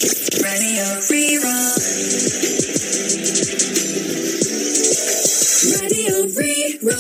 Raidió Rí-Rá. Raidió Rí-Rá.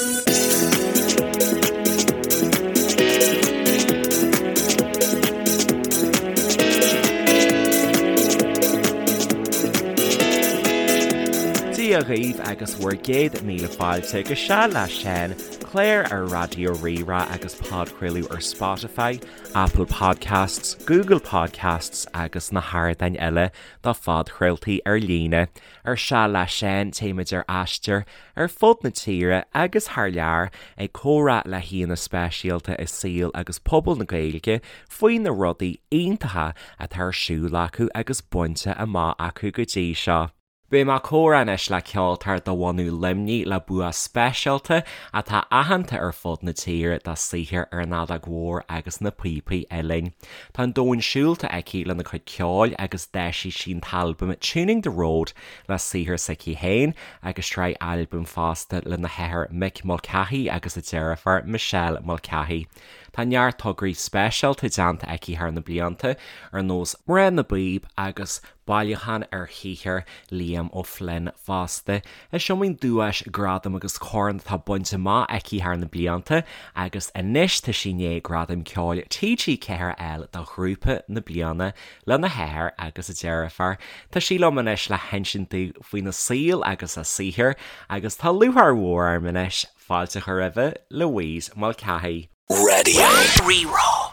Dia dhaoibh agus bhur gcéad míle fáilte go Seal le Seán, clár ar Raidió Rí-Rá agus podchraoladh ar Spotify, Apple Podcasts, Google Podcasts agus na hardáin eile do phodchraoltaí ar líne. Ar Seal le Seán téimid ar aistear ar fud na tíre agus thar lear ag comhrá le haíonna speisialta i saol agus pobal na Gaeilge faoi na rudaí iontacha atá ar siúl acu agus bainte amach acu go dtí seo. Beidh mé ag comhrá anois le ceoltóir de bhunadh Luimnigh le bua speisialta atá aitheanta ar fud na tíre dá saothar ar an fheadóg mhór agus na píopaí uilleann. Tá an domhan siúlta aici lena cuid ceoil agus d'eisigh sí an t-albam Tuning the Road le saothar s'aici féin agus sraith albam fosta lena hathair Mick Mulcahy agus a deirfiúr Michelle Mulcahy. Tá neart tograí speisialta déanta aici thar na blianta ar nós Mná na bPíob agus Bailiúchán ar shaothar Liam O'Flynn fosta. Is iomaí duais, gradam agus corn atá bainte amach aici thar na blianta agus anois tá sí i ndiaidh Gradam Ceoil TG4 a fháil do Ghrúpa na Bliana lena hathair agus a deirfiúr. Tá sí liom anois le hinsint domh faoina saol agus a saothar agus tá lúcháir mhór orm anois fáilte a chur roimhe, Louise Mulcahy. Raidió Rí-Rá.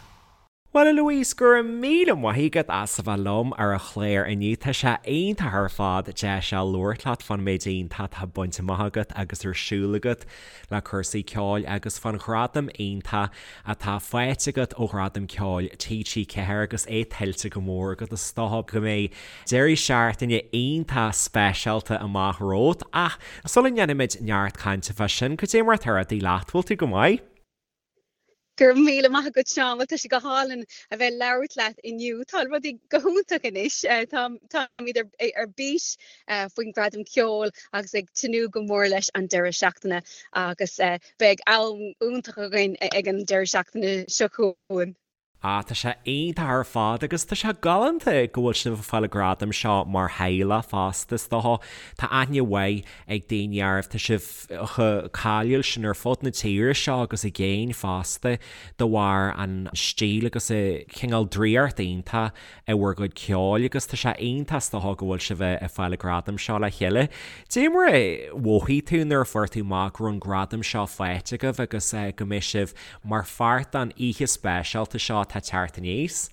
Bhuel a Louise, go raibh míle maith agat as a bheith liom ar an chlár inniu. Tá sé iontach ar fad deis a labhairt leat fán méid iontach atá bainte amach agat agus ar siúl agat le cúrsaí ceoil agus fán ghradam iontach atá faighte agat ó Ghradam Ceoil TG4 agus é tuillte go mór agat. Is dócha go mbeidh deireadh seachtaine iontach speisialta amach romhat ach sula ndéanfaimid neart cainte fá sin, cad é mar atá rudaí leat? Bhfuil tú go maith? Go raibh míle maith agat Seán, bhuel tá sé go hálainn a bheith ag labhairt leat inniu. Tá rudaí go hiontach anois, táimid ar bís faoin Gradam Ceoil agus ag tnúth go mór leis an deireadh seachtaine agus beidh am iontach againn ag an deireadh seachtaine seo chugainn. Ah, tá sé iontach ar fad agus tá sé galánta go bhfuil sibh ag fáil an gradam seo mar theaghlach fosta, is dócha. Tá aithne mhaith ag daoine oraibh, tá sibh chomh cáiliúil sin ar fud na tíre seo agus i gcéin fosta de bharr an stíl agus an cineál draíocht iontach i bhur gcuid ceoil agus tá sé iontach is dócha go bhfuil sibh ag fáil an gradam seo le chéile. Dé mar a mhothaigh tú nuair a fuair tú amach go raibh an gradam seo faighte agaibh agus go mbeidh sibh mar pháirt den oíche speisialta seo atá ag teacht aníos?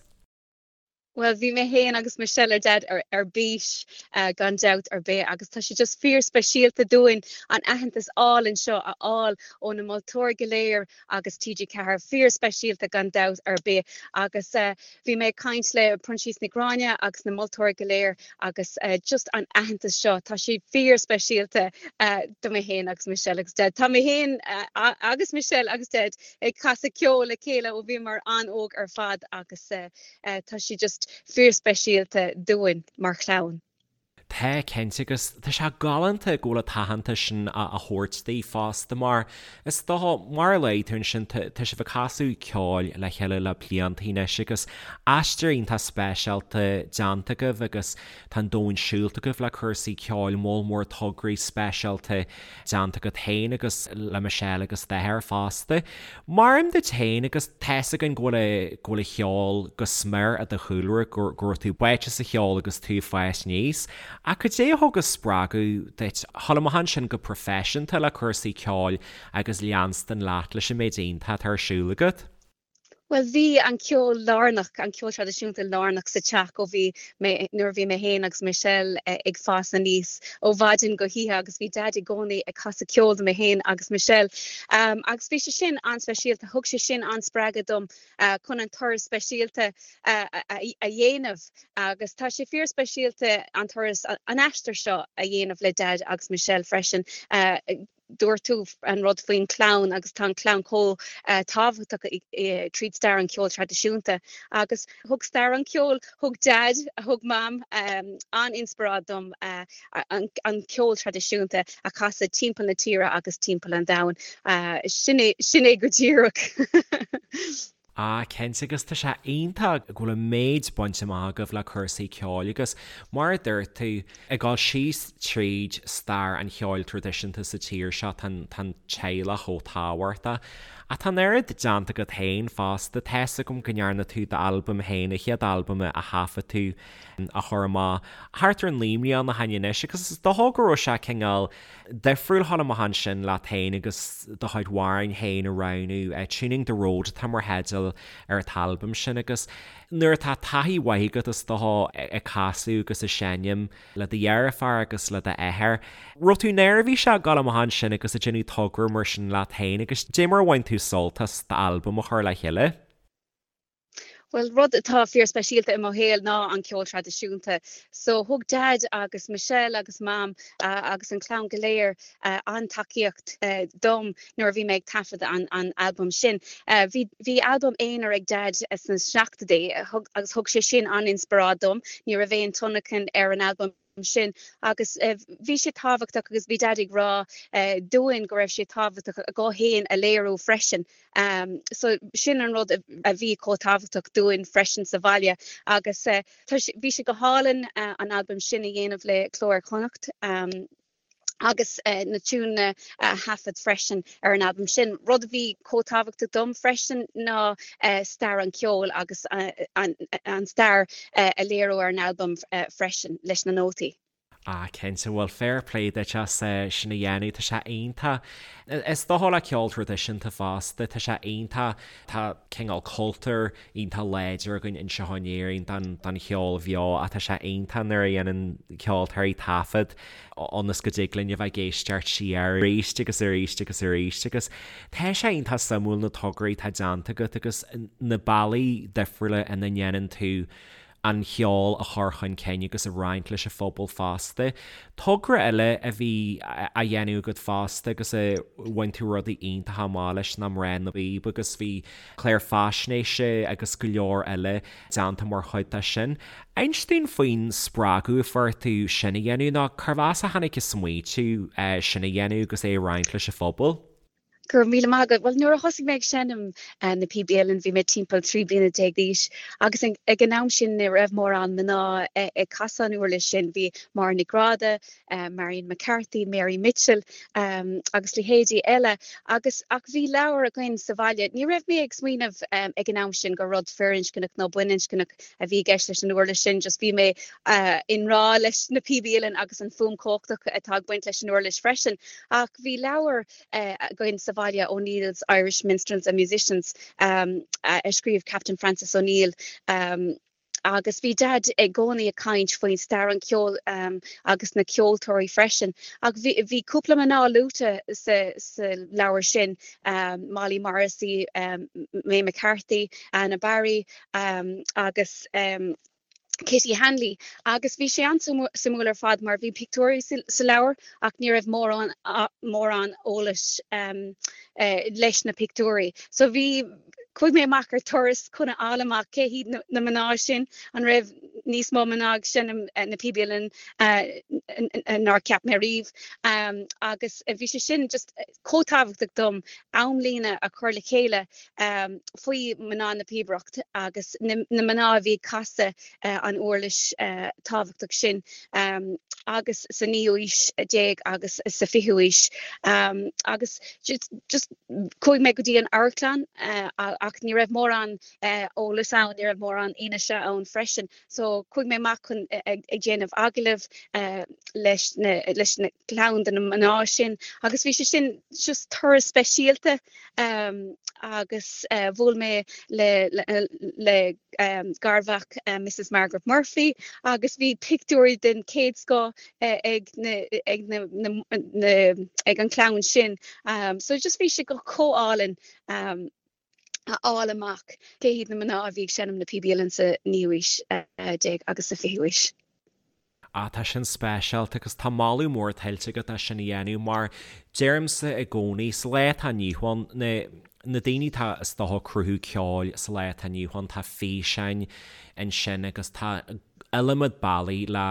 Bhuel, bhí mé féin agus Michelle ar Daid ar bís gan dabht ar bith agus tá sé just fíor speisialta dúinn an aitheantas álainn seo a fháil ó na moltóirí go léir agus TG4, fíor speisialta gan dabht ar bith agus bhí mé ag caint le Proinsias Nic Ghráinne agus na moltóirí go léir agus just an aitheantas seo, tá sé fíor speisialta do mé féin agus Michelle agus Daid. Tá mé féin agus Michelle agus Daid ag casadh ceoil le chéile ó bhíomar an-óg ar fad agus tá sé just fíor speisialta dúinn mar chlann. Tá, cinnte, agus tá sé galánta go bhfuil an t-aitheantas sin á thabhairt daoibh fosta mar is dócha, mar a luaigh tú ansin, tá sibh ag casadh ceoil le chéile le blianta anois agus aistear iontach speisialta déanta agaibh agus tá an domhan siúlta agaibh le cúrsaí ceoil, moll mór tograí speisialta déanta agat féin agus le Michelle agus d'athair fosta. Mar duit féin agus tá's againn go bhfuil go bhfuil an cheol go smior i do chúlra, go raibh tú báite sa cheol agus tú ag fás aníos. Ach cad é a thug an spreagadh duit dhul amach ansin go proifisiúnta le cúrsaí ceoil agus leanstan leat leis an méid iontach atá ar siúl agat? Bhuel, bhí an ceol lárnach, an ceol traidisiúnta lárnach sa teach ó bhí mé, nuair a bhí mé féin agus Michelle ag fás aníos, ó mhaidin go hoíche agus bhí Daid i gcónaí ag casadh ceoil do mé féin agus Michelle. Agus bhí sé sin an-speisialta, thug sé sin an-spreagadh dom chun an turas speisialta a dhéanamh agus tá sé fíor-speisialta an turas, an aistear seo a dhéanamh le Daid agus Michelle freisin. Dúirt tú an rud faoin chlann agus tá an chlann chomh tábhachtach tríd stair an cheoil traidisiúnta agus thug stair an cheoil, thug Daid, thug Mam an-inspioráid dom an ceol traidisiúnta a chasadh timpeall na tíre agus timpeall an domhain. Sin é, sin é go díreach. Ah cinnte agus tá sé iontach go bhfuil an méid bainte amach agaibh le cúrsaí ceoil agus mar a dúirt tú, ag dul síos tríd stair an cheoil traidisiúnta sa tír seo tá an teaghlach chomh tábhachtach. Ach tá an oiread déanta agat féin fosta, tá's agam go ndearna tú d'albam féin, an chéad albam a thaifead tú a chur amach thart ar 9 mbliana ó shin anois agus is dócha go raibh sé cineál difriúil a dhul amach ansin leat féin agus do chuid amhráin féin a roghnú. Tuning the Road atá mar theideal ar an t-albam sin agus nuair atá taithí mhaith agat is dócha ag casadh agus ag seinm le do dheirfiúr agus le d'athair, raibh tú neirbhíseach ag dul amach ansin agus ag déanamh togra mar sin leat féin agus dé mar a bhain tú sult as d'albam a chur le chéile? Bhuel, rud atá fíorspeisialta i mo shaol ná an ceol traidisiúnta. So thug Dad agus Michelle agus Mam agus an chlann go léir an-tacaíocht dom nuair a bhí mé ag taifead an an albam sin. Bhí bhí albam aonair ag Dad sna seachtóidí agus thug sé sin an-inspioráid dom. Ní raibh aon tionlacan ar an albam sin agus bhí sé tábhachtach agus bhí Dad ag rá dúinn go raibh sé tábhachtach a guth féin a léiriú freisin. So sin an rud a bhí chomh tábhachtach dúinn freisin sa bhaile agus bhí sé go hálainn an albam sin a dhéanamh le Cló Iar-Chonnacht agus na tiúineanna a thaifead freisin ar an albam sin. Rud a bhí chomh tábhachtach dom freisin ná stair an cheoil agus an stair a léiriú ar an albam freisin leis na nótaí. Ah cinnte, bhuel fair play duit as sin a dhéanamh, tá sé iontach. Is dócha le ceol traidisiúnta fosta, tá sé iontach, tá cineál cultúr iontach láidir againn anseo in Éirinn don cheol bheo ach tá sé iontach nuair a dhéanann ceoltóirí taifead ionas go dtig linn a bheith ag éisteacht siar arís agus arís agus arís agus tá sé iontach suimiúil na tograí atá déanta agat agus na bealaí difriúla ina ndéanann tú an cheol a chur chun cinn agus a roinnt leis an phobal fosta. Togra eile a bhí á dhéanamh agat fosta agus a bhain tú rudaí iontacha amach leis ná Mná na bPíob agus bhí clár faisnéise agus go leor eile déanta mar chuid de sin. Inis dúinn faoin spreagadh a fuair tú sin a dhéanamh nó cérbh as a tháinig an smaoitiú sin a dhéanamh agus é a roinnt leis an phobal? Go raibh míle maith agat. Bhuel, nuair a thosaigh mé ag seinm na píobaí uilleann, bhí mé timpeall 13 bliana d'aois agus ag an am sin ní raibh mórán mná ag casadh an uirlis sin. Bhí Máire Nic Gráda, Marion McCarthy, Mary Mitchell agus leithéidí eile agus ach bhí leabhar againn sa bhaile. Ní raibh mé ag smaoineamh ag an am sin gur rud firinscneach nó baininscneach a bhí i gceist leis an uirlis sin, just bhí mé i ngrá leis na píobaí uilleann agus an fuaim chumhachtach atá ag baint leis an uirlis freisin. Ach bhí leabhar againn sa bhaile, O'Neill's Irish Minstrels and Musicians, a scríobh Captain Francis O'Neill. Agus bhí Dad i gcónaí ag caint faoin stair an cheoil agus na ceoltóirí freisin. Ach bhí bhí cúpla mná luaite sa sa leabhar sin, Molly Morrissey, May McCarthy, Anna Barry agus Kitty Hanley agus bhí sé an-suimiúil ar fad mar bhí pictiúirí sa leabhar ach ní raibh mórán mórán eolais leis na pictiúirí. So bhí chuaigh mé amach ar turas chun a fháil amach cé hiad na mná sin, an raibh níos mó mná ag seinm na píobaí uilleann nár cheap mé riamh agus bhí sé sin just chomh tábhachtach dom amlíne a chur le chéile faoi mná na píobaireacht agus na mná a bhí ag casadh an uirlis tábhachtach sin agus sa naoú haois déag agus sa fichiú haois agus just chuaigh mé go dtí an amharclann ach ní raibh mórán eolas ann, ní raibh mórán fhianaise ann freisin. So chuaigh mé amach chun ag déanamh agallamh leis na leis na clann de na mná sin agus bhí sé sin just turas speisialta agus bhuail mé le le garmhac Mrs Margaret Murphy agus bhí pictiúirí den chéad scoth ag na ag na na ag an clann sin. So just bhí sé go chomh álainn. a fháil amach cé hiad na mná a bhí ag seinm na píobaí uilleann sa naoú haois déag agus sa fichiú haois. Ah, tá sin speisialta agus tá moladh mór tuillte agat as sin a dhéanamh mar deirimse i gcónaí, sa lá atá inniu ann, na na daoine atá is dócha ag cruthú ceoil sa lá atá inniu ann, tá físeáin ansin agus tá. iliomad bealaí le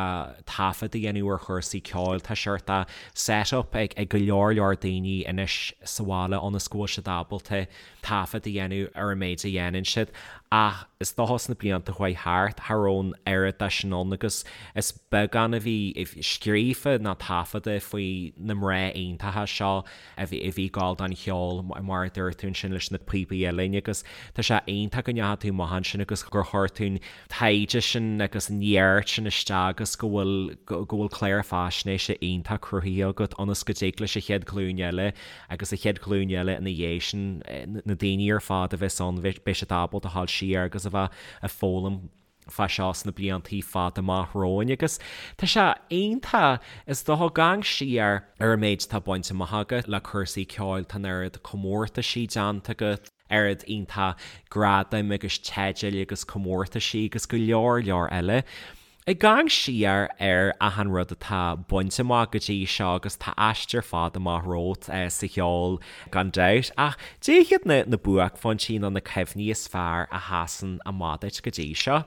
taifead a dhéanamh ar chúrsaí ceoil. Tá seort set-up ag go leor leor daoine anois sa bhaile ionas go bhfuil siad ábalta taifead a dhéanamh ar an méid a dhéanann siad ach is dócha sna blianta a chuaigh thart, cha raibh an oiread de sin ann agus is beagán a bhí scríofa ná taifeadta faoi na mná iontacha seo a bhí ag gabháil don cheol mar a dúirt tú ansin leis na píopaí uilleann agus tá sé iontach go ndeachaigh tú amach ansin agus gur chuir tú an taighde sin agus an neart sin isteach agus go bhfuil go bhfuil clár faisnéise iontach cruthaithe agat ionas go dtig leis an chéad ghlúin eile agus an chéad ghlúin eile ina dhiaidh sin, na daoine ar fad a bheas ann, beidh siad ábalta a ghabháil siar agus a bheith ag foghlaim fá seo sna bliantaí fada amach romhainn agus tá sé iontach, is dócha, ag amharc siar ar an méid atá bainte amach agat le cúrsaí ceoil, tá an oiread comórtaisí déanta agat, oiread iontach gradaim agus teidil agus comórtaisí agus go leor leor eile. Ag amharc siar ar achan rud atá bainte amach go dtí seo agus tá aistear fada amach romhat sa cheol gan dabht, ach cad iad na na buaicphointí nó na cuimhní is fearr a sheasann amach duit go dtí seo?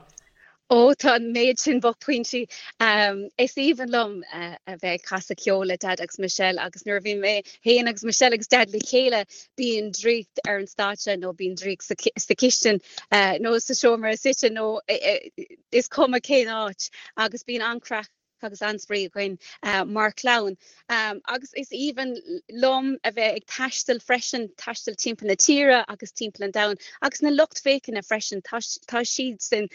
Ó, tá an méid sin buaicphointí. Is aoibhinn liom a bheith ag casadh ceoil le Daid agus Michelle agus nuair a bhíonn mé féin agus Michelle agus Daid le chéile bíonn draíocht ar an stáitse nó bíonn draíocht sa chistin nó sa seomra suite nó is cuma cén áit agus bíonn an-chraic agus an-spraoi againn mar chlann. Agus is aoibhinn liom a bheith ag taisteal freisin, taisteal timpeall na tíre agus timpeall an domhain agus na lucht féachana freisin, tá siadsan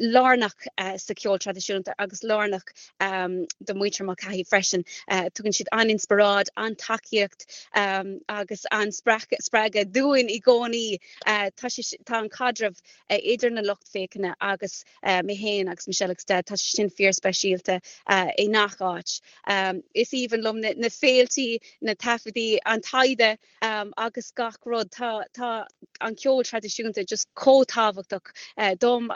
lárnach sa cheol traidisiúnta agus lárnach do mhuintir Mulcahy freisin. Tugann siad an-inspioráid, an-tacaíocht agus an-spreagadh dúinn i gcónaí. Tá an caidreamh idir na lucht féachana agus mé féin agus Michelle agus Daid, tá sé sin fíorspeisialta i ngach áit. Is aoibhinn liom na féiltí, na taifeadaí, an taighde agus gach rud. Tá tá an ceol traidisiúnta just chomh tábhachtach dom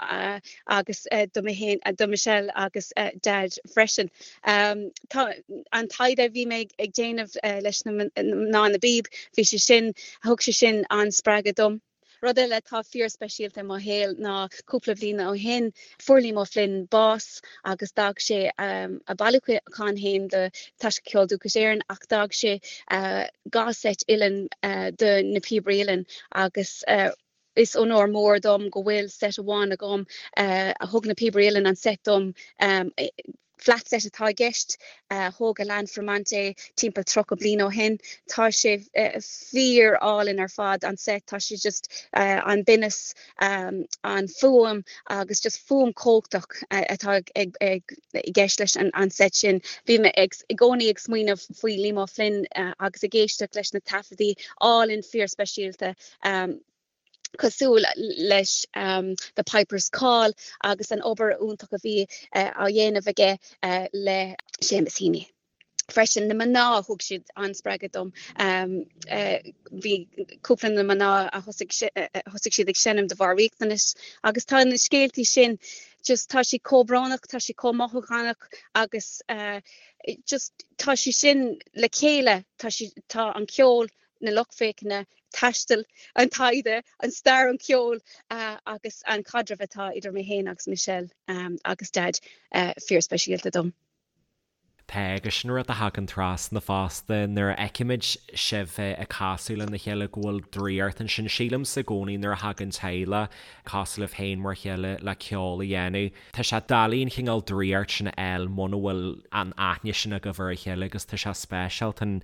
agus do mé féin, do Michelle agus Daid freisin. Tá an taighde a bhí mé ag déanamh leis na mná na bpíob, bhí sé sin, thug sé sin an-spreagadh dom. Rud eile atá fíorspeisialta i mo shaol ná cúpla bliain ó shin fuair Liam O'Flynn bás agus d'fhág sé a bailiúchán féin do Taisce Ceol Dúchais Éireann ach d'fhág sé 2 seit uilleann do na píobairí uilleann agus is onóir mór dom go bhfuil seit amháin agam a thug na píobairí uilleann an seit dom Flat set atá i gceist. Thóg Alain Fromont é timpeall 30 bliain ó shin. Tá sé fíor álainn ar fad, an set. Tá sé just an binneas, an fuaim agus just fuaim chumhachtach atá i gceist leis an set sin. Bhí mé i gcónaí ag smaoineamh faoi Liam O'Flynn agus ag éisteacht leis na taifeadaí álainn fíor speisialta. cosúil leis The Piper's Call agus an obair iontach a bhí á dhéanamh aige le Seamus Heaney. Freisin, na mná, thug siad an-spreagadh dom. Bhí cúpla na mná a thosaigh siad ag seinm de bharr riachtanais agus tá na scéaltaí sin just tá siad chomh brónach, tá siad chomh mothúchánach agus just tá sé sin le chéile, tá sé, tá an ceol, na lucht féachana, taisteal, an taighde, an stair an ceol agus an caidreamh atá idir mé féin agus Michelle agus Daid fíorspeisialta dom. Tá, agus sin rud a thagann trasna fosta nuair a fheicimid sibh ag casadh lena chéile go bhfuil draíocht ansin. Sílimse i gcónaí nuair a thagann teaghlach cosúil libh féin mar chéile le ceol a dhéanamh, tá sé doiligh an chineál draíocht sin a fháil muna bhfuil an aithne sin agaibh ar a chéile agus tá sé speisialta an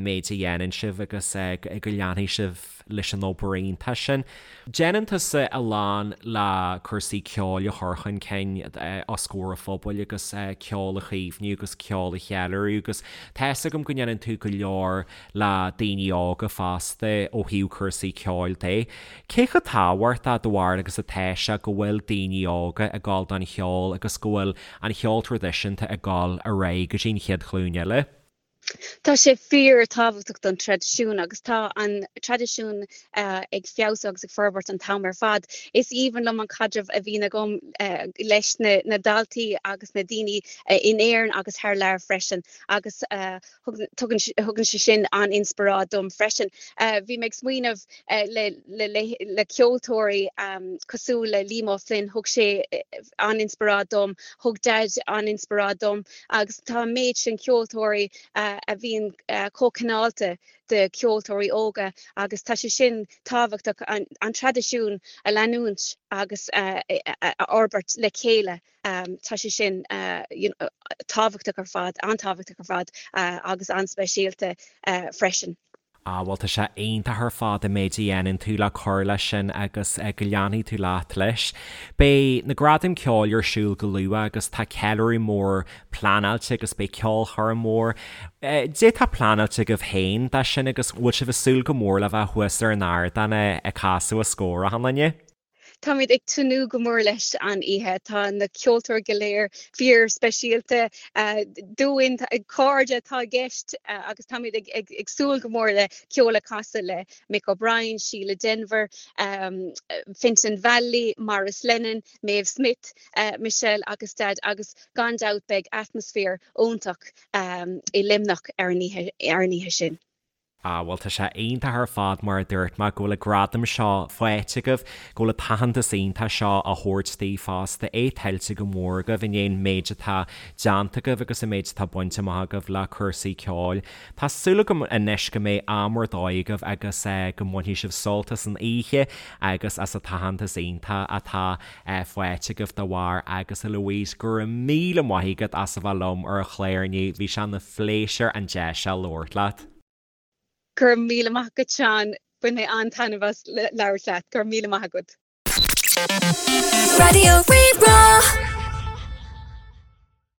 méid a dhéanann sibh agus go leanfaidh sibh leis an obair iontach sin. Déanann tusa a lán le cúrsaí ceoil a chur chun cinn os comhair an phobail agus ceol a chaomhnú agus ceol a cheiliúradh agus tá fhios agam go ndéanann tú go leor le daoine óga fosta ó thaobh cúrsaí ceoil de. Cé chomh tábhachtach do bharúil agus atá sé go bhfuil daoine óga ag gabháil don cheol agus go bhfuil an cheol traidisiúnta ag gabháil ar aghaidh go dtí an chéad ghlúin eile? Tá sé fíor tábhachtach don traidisiún agus tá an traidisiún ag feabhsú agus ag forbairt an t-am ar fad. Is aoibhinn liom an caidreamh a bhíonn agam leis na daltaí agus na daoine in Éirinn agus thar lear freisin agus tugann sé sin an-inspioráid dom freisin. Bhí mé ag smaoineamh le ceoltóirí cosúil le Liam O'Flynn, thug sé an-inspioráid dom, thug Daid an-inspioráid dom agus tá an méid sin ceoltóirí a bhíonn chomh cineálta do cheoltóirí óga agus tá sé sin tábhachtach an traidisiún a leanúint agus a fhorbairt le chéile. Tá sé sin tábhachtach ar fad, an-tábhachtach ar fad agus an-speisialta freisin. Ah bhuel tá sé iontach ar fad an méid a dhéanann tú le cur leis sin agus go leanfaidh tú leat leis. Beidh na Gradaim Ceoil ar siúl go luath agus tá ceiliúradh mór pleanáilte agus beidh ceolchoirm mhór. Cad é atá pleanáilte agaibh féin dó sin agus bhfuil sibh ag súil go mór le bheith thuas ar an ardán ag casadh os comhair achan duine? Táimid ag tnúth go mór leis an oíche. Tá na ceoltóirí go léir fíor speisialta dúinn, cairde atá i gceist agus táimid ag súil go mór le ceol a chasadh le Mick O'Brien, Síle Denvir, Fintan Vallely, Maurice Lennon, Maeve Smith, Michelle agus Daid agus gan dabht beidh atmaisféar iontach i Luimneach ar an oíche sin. Ah, bhuel tá sé iontach ar fad mar a dúirt mé go bhfuil an gradam seo faighte agaibh, go bhfuil an t-aitheantas iontach seo á thabhairt daoibh fosta, é tuillte go mór agaibh i ndiaidh an méid atá déanta agaibh agus an méid atá bainte amach agaibh le cúrsaí ceoil. Tá súil agam anois go mbeidh am ar dóigh agaibh agus go mbainfidh sibh sult as an oíche agus as an t-aitheantas iontach atá faighte agaibh dá bharr agus a Louise, go raibh míle maith agat as a bheith liom ar an chlár inniu, bhí sé ina phléisiúr an deis seo labhairt leat. Go raibh míle maith agat Seán, bhain mé an-taitneamh as labhairt leat, go raibh míle maith agat. Raidió Rí-Rá.